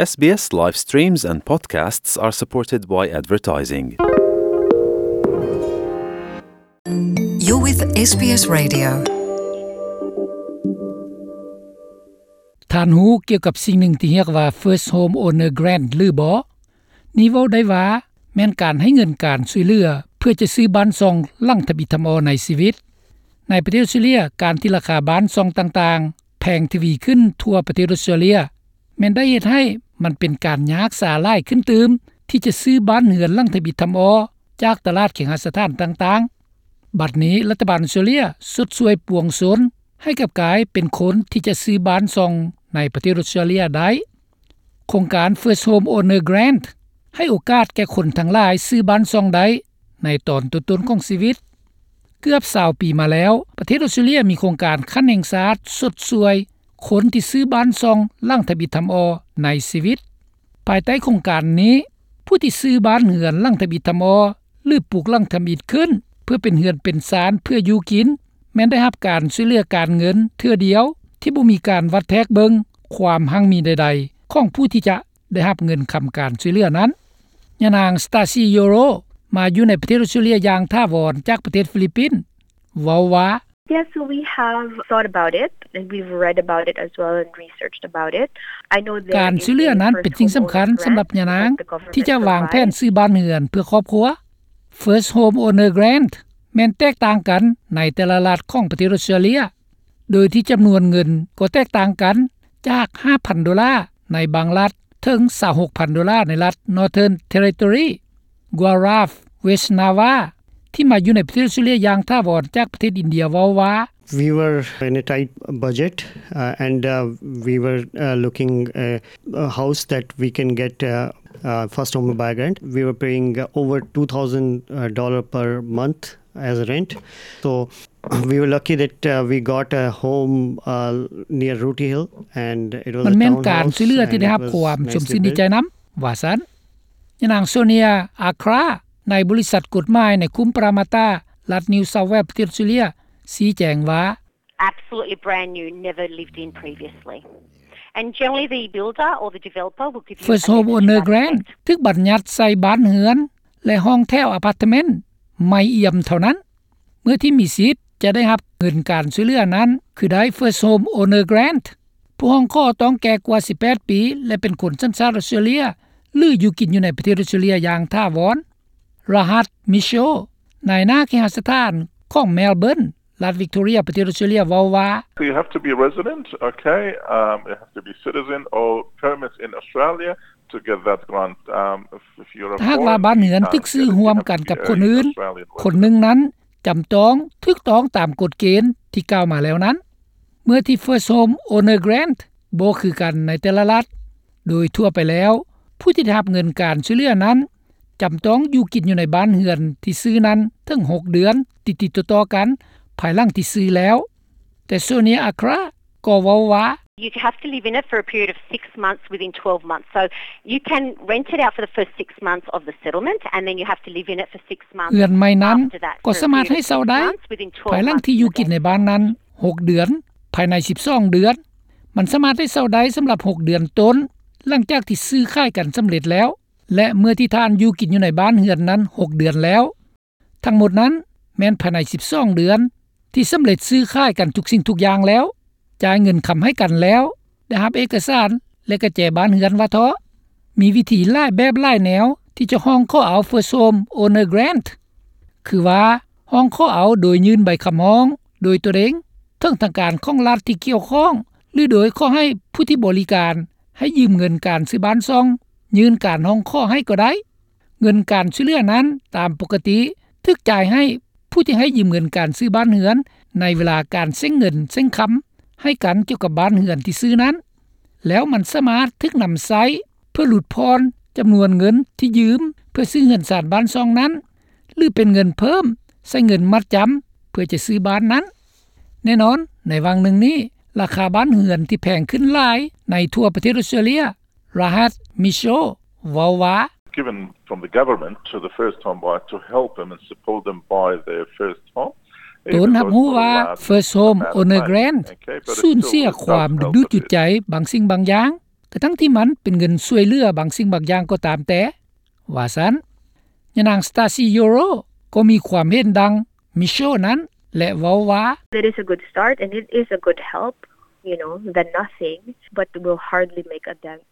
S B S live streams and podcasts are supported by advertising. You're with S B S Radio. ທ່ານຮູ້ກ່ຽວກັບສິ່ງໜຶ່ງທີ່ຮຽກວ່າ First Home Owner Grant ຫຼືບໍ່? ນີ້ເວົ້າໄດ້ວ່າແມ່ນການໃຫ້ເງິນການຊ່ວຍເຫຼືອ ເພື່ອຈະຊື້ບ້ານຊ່ອງຫຼັງທຳອິດທຳອໍໃນຊີວິດ. ໃນປະເທດອອສເຕຣເລັຽ, ການທີ່ລາຄາບ້ານຊ່ອງຕ່າງໆແພງທະວີຂຶ້ນທົ່ວປະເທດອອສເຕຣເລັຽ ແມ່ນໄດ້ເຮັດໃຫ້ມັນເປັນການຍາກສາຫຼາຍຂຶ້ນຕື່ມ ທີ່ຈະຊື້ບ້ານເຮືອນຫຼັງທຳອິດທຳອໍຈາກຕະຫຼາດເຄຫະສະຖານຕ່າງໆ. ບັດນີ້ລັດຖະບານອອສເຕຣເລັຽຊົດຊ່ວຍປວງຊົນໃຫ້ກັບກາຍເປັນຄົນທີ່ຈະຊື້ບ້ານຊ່ອງໃນປະເທດອອສເຕຣເລັຽໄດ້. ໂຄງການ First Home Owner Grant ໃຫ້ໂອກາດແກ່ຄົນທັງຫຼາຍຊື້ບ້ານຊ່ອງໄດ້ໃນຕອນຕົ້ນໆຂອງຊີວິດ. ເກືອບຊາວປີມາແລ້ວ, ປະເທດອອສເຕຣເລັຽມີໂຄງການຂັ້ນແຫ່ງຊາດຊົດຊ່ວຍຄົນທີ່ຊື້ບ້ານຊ່ອງຫຼັງທຳອິດທຳອໍໃນຊີວິດ. ພາຍໃຕ້ໂຄງການນີ້, ຜູ້ທີ່ຊື້ບ້ານເຮືອນຫຼັງທຳອິດທຳອໍ ຫຼື ປຸກຫຼັງທຳອິດຂຶ້ນ ເພື່ອເປັນເຮືອນເປັນຊານເພື່ອຢູ່ກິນ ແມ່ນໄດ້ຮັບການຊ່ວຍເຫຼືອການເງິນເທື່ອດຽວ ທີ່ບໍ່ມີການວັດແທກເບິ່ງຄວາມຮັ່ງມີໃດໆຂອງຜູ້ທີ່ຈະໄດ້ຮັບເງິນຄຳການຊ່ວຍເຫຼືອນັ້ນ. ຍານາງ Stacy Yoro ມາຢູ່ໃນປະເທດອອສເຕຣເລັຽຢ່າງຖາວອນຈາກປະເທດຟີລິບປິນ ເວົ້າວ່າ Yes, so we have thought about it, and we've read about it as well and researched about it. I know there is a First Home Owner Grant. ການຊ່ວຍເຫຼືອນັ້ນເປັນສິ່ງສຳຄັນສຳລັບຍານາງທີ່ຈະວາງແຜນຊື້ບ້ານເຮືອນເພື່ອຄອບຄົວ. First Home Owner Grant ແມ່ນແຕກຕ່າງກັນໃນແຕ່ລະລັດຂອງປະເທດອອສເຕຣເລັຽ, ໂດຍທີ່ຈຳນວນເງິນກໍແຕກຕ່າງກັນ ຈາກຫ້າພັນໂດລາໃນບາງລັດ ເຖິງຊາວຫົກພັນໂດລາໃນລັດ Northern Territory, Guelph, West Narwa ທີ່ມາຢູ່ໃນປະເທດອອສເຕຣເລັຽຢ່າງຖາວອນຈາກປະເທດອິນເດຍເວົ້າວ່າ We were in a tight budget, uh, and, uh, we were, uh, looking, uh, a house that we can get, uh, uh, first home buyer grant. We were paying, uh, over two thousand, uh, dollar per month as rent. So we were lucky that, uh, we got a home, uh, near Rooty Hill, and it was a townhouse, and it was nicely built. ມັນແມ່ນການຊ່ວຍເຫຼືອທີ່ໄດ້ຮັບຄວາມຊົມຊື່ນດີໃຈນຳ ວ່າຊັ້ນ. ຍານາງ Sonia Accra ໃນບໍລິສັດກົດໝາຍໃນຄຸ້ມປະຣາມາຕາ ລັດ New South Wales ປະເທດອອສເຕຣເລັຽ ຊີ້ແຈງວ່າ Absolutely brand new, never lived in previously. And generally the builder or the developer will give you a First Home Owner Grant ຖືກບັນຍັດໃສ່ບ້ານເຮືອນ ແລະ ຫ້ອງແຖວອາພາດເມັນໃໝ່ອຽມເທົ່ານັ້ນ ເມື່ອທີ່ມີສິດຈະໄດ້ຮັບເງິນການຊ່ວຍເຫຼືອນັ້ນ ຄືໄດ້ First Home Owner Grant. ຜູ້ຮ້ອງຂໍຕ້ອງແກ່ກວ່າສິບແປດປີ ແລະ ເປັນຄົນສັນຊາດອອສເຕຣເລັຽ ຫຼື ຢູ່ກິນຢູ່ໃນປະເທດອອສເຕຣເລັຽຢ່າງຖາວອນ. Rahat Mitchell ນາຍໜ້າເຄຫະສະຖານຂອງ Melbourne ລັດ Victoria ປະເທດອອສເຕຣເລັຽເວົ້າວ່າ So you have to be a resident, okay, um, you have to be citizen or permit in Australia to get that grant. Um, if, if you're a foreign, you can't get it. ຖ້າຫາກວ່າບ້ານເຮືອນຖືກຊື້ຮ່ວມກັນກັບຄົນອື່ນ, ຄົນໜຶ່ງນັ້ນຈຳຕ້ອງຖືກຕ້ອງຕາມກົດເກນທີ່ກ່າວມາແລ້ວນັ້ນ. ເມື່ອທີ່ First Home Owner Grant ບໍ່ຄືກັນໃນແຕ່ລະລັດ, ໂດຍທົ່ວໄປແລ້ວ ຜູ້ທີ່ໄດ້ຮັບເງິນການຊ່ວຍເຫຼືອນັ້ນ ຈຳຕ້ອງຢູ່ກິນຢູ່ໃນບ້ານເຮືອນທີ່ຊື້ນັ້ນເຖິງຫົກເດືອນຕິດໆຕໍ່ໆກັນ ພາຍຫຼັງທີ່ຊື້ແລ້ວ. ແຕ່ Sonia Accra ກໍເວົ້າວ່າ You have to live in it for a period of six months within twelve months. So you can rent it out for the first six months of the settlement, and then you have to live in it for six months after that. ເຮືອນໃໝ່ນັ້ນກໍສາມາດໃຫ້ເຊົ່າໄດ້ ພາຍຫຼັງທີ່ຢູ່ກິນໃນບ້ານນັ້ນຫົກເດືອນ, ພາຍໃນສິບສອງເດືອນ. ມັນສາມາດໃຫ້ເຊົ່າໄດ້ສຳລັບຫົກເດືອນຕົ້ນ ຫຼັງຈາກທີ່ຊື້ຂາຍກັນສຳເລັດແລ້ວ ແລະ ເມື່ອທີ່ທ່ານຢູ່ກິນຢູ່ໃນບ້ານເຮືອນນັ້ນຫົກເດືອນແລ້ວ. ທັງໝົດນັ້ນແມ່ນພາຍໃນສິບສອງເດືອນ ທີ່ສຳເລັດຊື້ຂາຍກັນທຸກສິ່ງທຸກຢ່າງແລ້ວ, ຈ່າຍເງິນຄຳໃຫ້ກັນແລ້ວ, ໄດ້ຮັບເອກະສານ ແລະ ກະແຈບ້ານເຮືອນວ່າເທາະ. ມີວິທີຫຼາຍແບບຫຼາຍແນວທີ່ຈະຮ້ອງຂໍເອົາ First Home Owner Grant ຄືວ່າ ຮ້ອງຂໍເອົາໂດຍຍື່ນໃບຄຳຮ້ອງໂດຍຕົວເອງເຖິງທາງການຂອງລັດທີ່ກ່ຽວຂ້ອງ ຫຼື ໂດຍຂໍໃຫ້ຜູ້ທີ່ບໍລິການໃຫ້ຢືມເງິນການຊື້ບ້ານຊ່ອງຍື່ນການຮ້ອງຂໍໃຫ້ກໍໄດ້. ເງິນການຊ່ວຍເຫຼືອນັ້ນຕາມປົກກະຕິຖືກຈ່າຍໃຫ້ຜູ້ທີ່ໃຫ້ຢືມເງິນການຊື້ບ້ານເຮືອນ ໃນເວລາການເສັງເງິນເສັງຄຳໃຫ້ກັນກ່ຽວກັບບ້ານເຮືອນທີ່ຊື້ນັ້ນ, ແລ້ວມັນສາມາດຖືກນຳໃຊ້ເພື່ອຫຼຸດຜ່ອນຈຳນວນເງິນທີ່ຢືມເພື່ອຊື້ເຮືອນຊານບ້ານຊ່ອງນັ້ນ ຫຼື ເປັນເງິນເພີ່ມໃສ່ເງິນມັດຈຳເພື່ອຈະຊື້ບ້ານນັ້ນ. ແນ່ນອນ, ໃນຫວ່າງໜຶ່ງນີ້, ລາຄາບ້ານເຮືອນທີ່ແພງຂຶ້ນຫຼາຍໃນທົ່ວປະເທດອອສເຕຣເລັຽ, Rahat Mitchell ເວົ້າວ່າ Given from the government to the first home buyer to help them and support them buy their first home, ຕົນຮັບຮູ້ວ່າ First Home Owner Grant ສູນເສຍຄວາມດຶງດູດຈູດໃຈບາງສິ່ງບາງຢ່າງ, ກະທັ່ງທີ່ມັນເປັນເງິນຊ່ວຍເຫຼືອບາງສິ່ງບາງຢ່າງກໍຕາມແຕ່, ວ່າຊັ້ນ. ຍານາງ Stacy Yorow ກໍມີຄວາມເຫັນດັ່ງ Michelle ນັ້ນ ແລະ ເວົ້າວ່າ, It is a good start and it is a good help, you know, than nothing, but will hardly make a dent.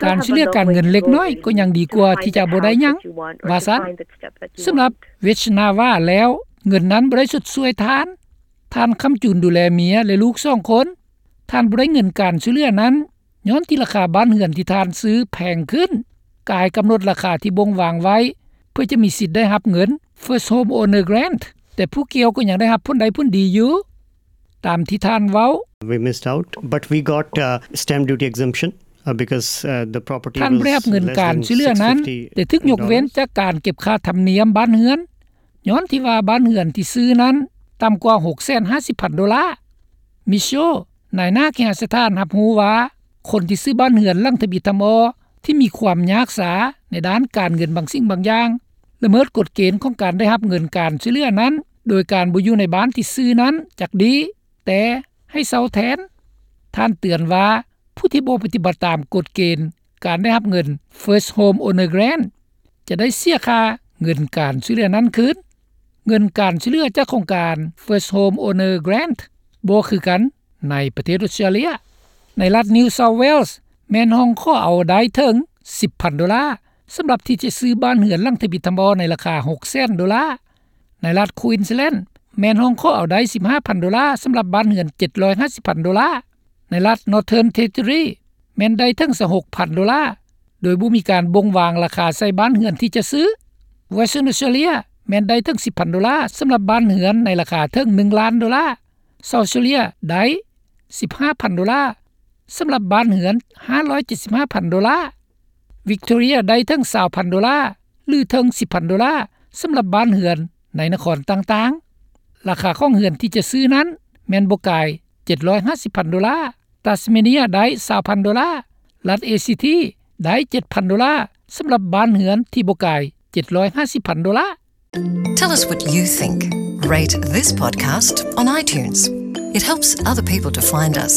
ການຊ່ວຍເຫຼືອການເງິນເລັກນ້ອຍກໍຍັງດີກວ່າທີ່ຈະບໍ່ໄດ້ຫຍັງ, ວ່າຊັ້ນ. ສຳລັບ Vechnava ແລ້ວ, ເງິນນັ້ນບໍ່ໄດ້ຊົດຊ່ວຍທ່ານ. ທ່ານຄ້ຳຈູນດູແລເມຍ ແລະ ລູກສອງຄົນ. ທ່ານບໍ່ໄດ້ເງິນການຊ່ວຍເຫຼືອນັ້ນ ຍ້ອນທີ່ລາຄາບ້ານເຮືອນທີ່ທ່ານຊື້ແພງຂຶ້ນ, ກາຍກຳນົດລາຄາທີ່ບົ່ງວາງໄວ້ ເພື່ອຈະມີສິດໄດ້ຮັບເງິນ First Home Owner Grant, ແຕ່ຜູ້ກ່ຽວກໍຍັງໄດ້ຮັບຜົນໄດ້ຜົນດີຢູ່. ຕາມທີ່ທ່ານເວົ້າ, We missed out, but we got, uh, stamp duty exemption, uh, because, uh, the property ທ່ານບໍ່ໄດ້ຮັບເງິນການຊ່ວຍເຫຼືອນັ້ນ, ແຕ່ຖືກຍົກເວັ້ນຈາກການເກັບຄ່າທຳນຽມບ້ານເຮືອນ, ຍ້ອນທີ່ວ່າບ້ານເຮືອນທີ່ຊື້ນັ້ນຕ່ຳກວ່າຫົກແສນຫ້າສິບພັນໂດລາ. Michelle ນາຍໜ້າເຄຫະສະຖານ ຮັບຮູ້ວ່າ ຄົນທີ່ຊື້ບ້ານເຮືອນຫຼັງທຳອິດທຳອໍ ທີ່ມີຄວາມຍາກຊ້າໃນດ້ານການເງິນບາງສິ່ງບາງຢ່າງ ລະເມີດກົດເກນຂອງການໄດ້ຮັບເງິນການຊ່ວຍເຫຼືອນັ້ນ ໂດຍການບໍ່ຢູ່ໃນບ້ານທີ່ຊື້ນັ້ນຈັກດີ, ແຕ່ໃຫ້ເຊົ່າແທນ. ທ່ານເຕືອນວ່າ ຜູ້ທີ່ບໍ່ປະຕິບັດຕາມກົດເກນການໄດ້ຮັບເງິນ First Home Owner Grant ຈະໄດ້ເສຍຄ່າເງິນການຊ່ວຍເຫຼືອນັ້ນຄືນ. ເງິນການຊ່ວຍເຫຼືອຈາກໂຄງການ First Home Owner Grant ບໍ່ຄືກັນໃນປະເທດອົດສະຕຣາເລຍ. ໃນລັດ New South Wales ແມ່ນຮ້ອງຂໍເອົາໄດ້ເຖິງສິບພັນໂດລາ ສຳລັບທີ່ຈະຊື້ບ້ານເຮືອນຫຼັງທຳອິດທຳອໍໃນລາຄາຫົກແສນໂດລາ. ໃນລັດ Queensland ແມ່ນຮ້ອງຂໍເອົາໄດ້ສິບຫ້າພັນໂດລາ ສຳລັບບ້ານເຮືອນເຈັດຮ້ອຍຫ້າສິບພັນໂດລາ. ໃນລັດ Northern Territory ແມ່ນໄດ້ເຖິງຊາວຫົກພັນໂດລາ ໂດຍບໍ່ມີການບົ່ງວາງລາຄາໃສ່ບ້ານເຮືອນທີ່ຈະຊື້. Western Australia ແມ່ນໄດ້ເຖິງສິບພັນໂດລາ ສຳລັບບ້ານເຮືອນໃນລາຄາເຖິງໜຶ່ງລ້ານໂດລາ. South Australia ໄດ້ສິບຫ້າພັນໂດລາ ສຳລັບບ້ານເຮືອນຫ້າຮ້ອຍເຈັດສິບຫ້າພັນໂດລາ. Victoria ໄດ້ເຖິງຊາວພັນໂດລາ ຫຼື ເຖິງສິບພັນໂດລາ ສຳລັບບ້ານເຮືອນໃນນະຄອນຕ່າງໆ. ລາຄາຂອງເຮືອນທີ່ຈະຊື້ນັ້ນແມ່ນບໍ່ກາຍເຈັດຮ້ອຍຫ້າສິບພັນໂດລາ. Tasmania ໄດ້ຊາວພັນໂດລາ. ລັດ ACT ໄດ້ເຈັດພັນໂດລາ ສຳລັບບ້ານເຮືອນທີ່ບໍ່ກາຍເຈັດຮ້ອຍຫ້າສິບພັນໂດລາ. Tell us what you think. Rate this podcast on iTunes. It helps other people to find us.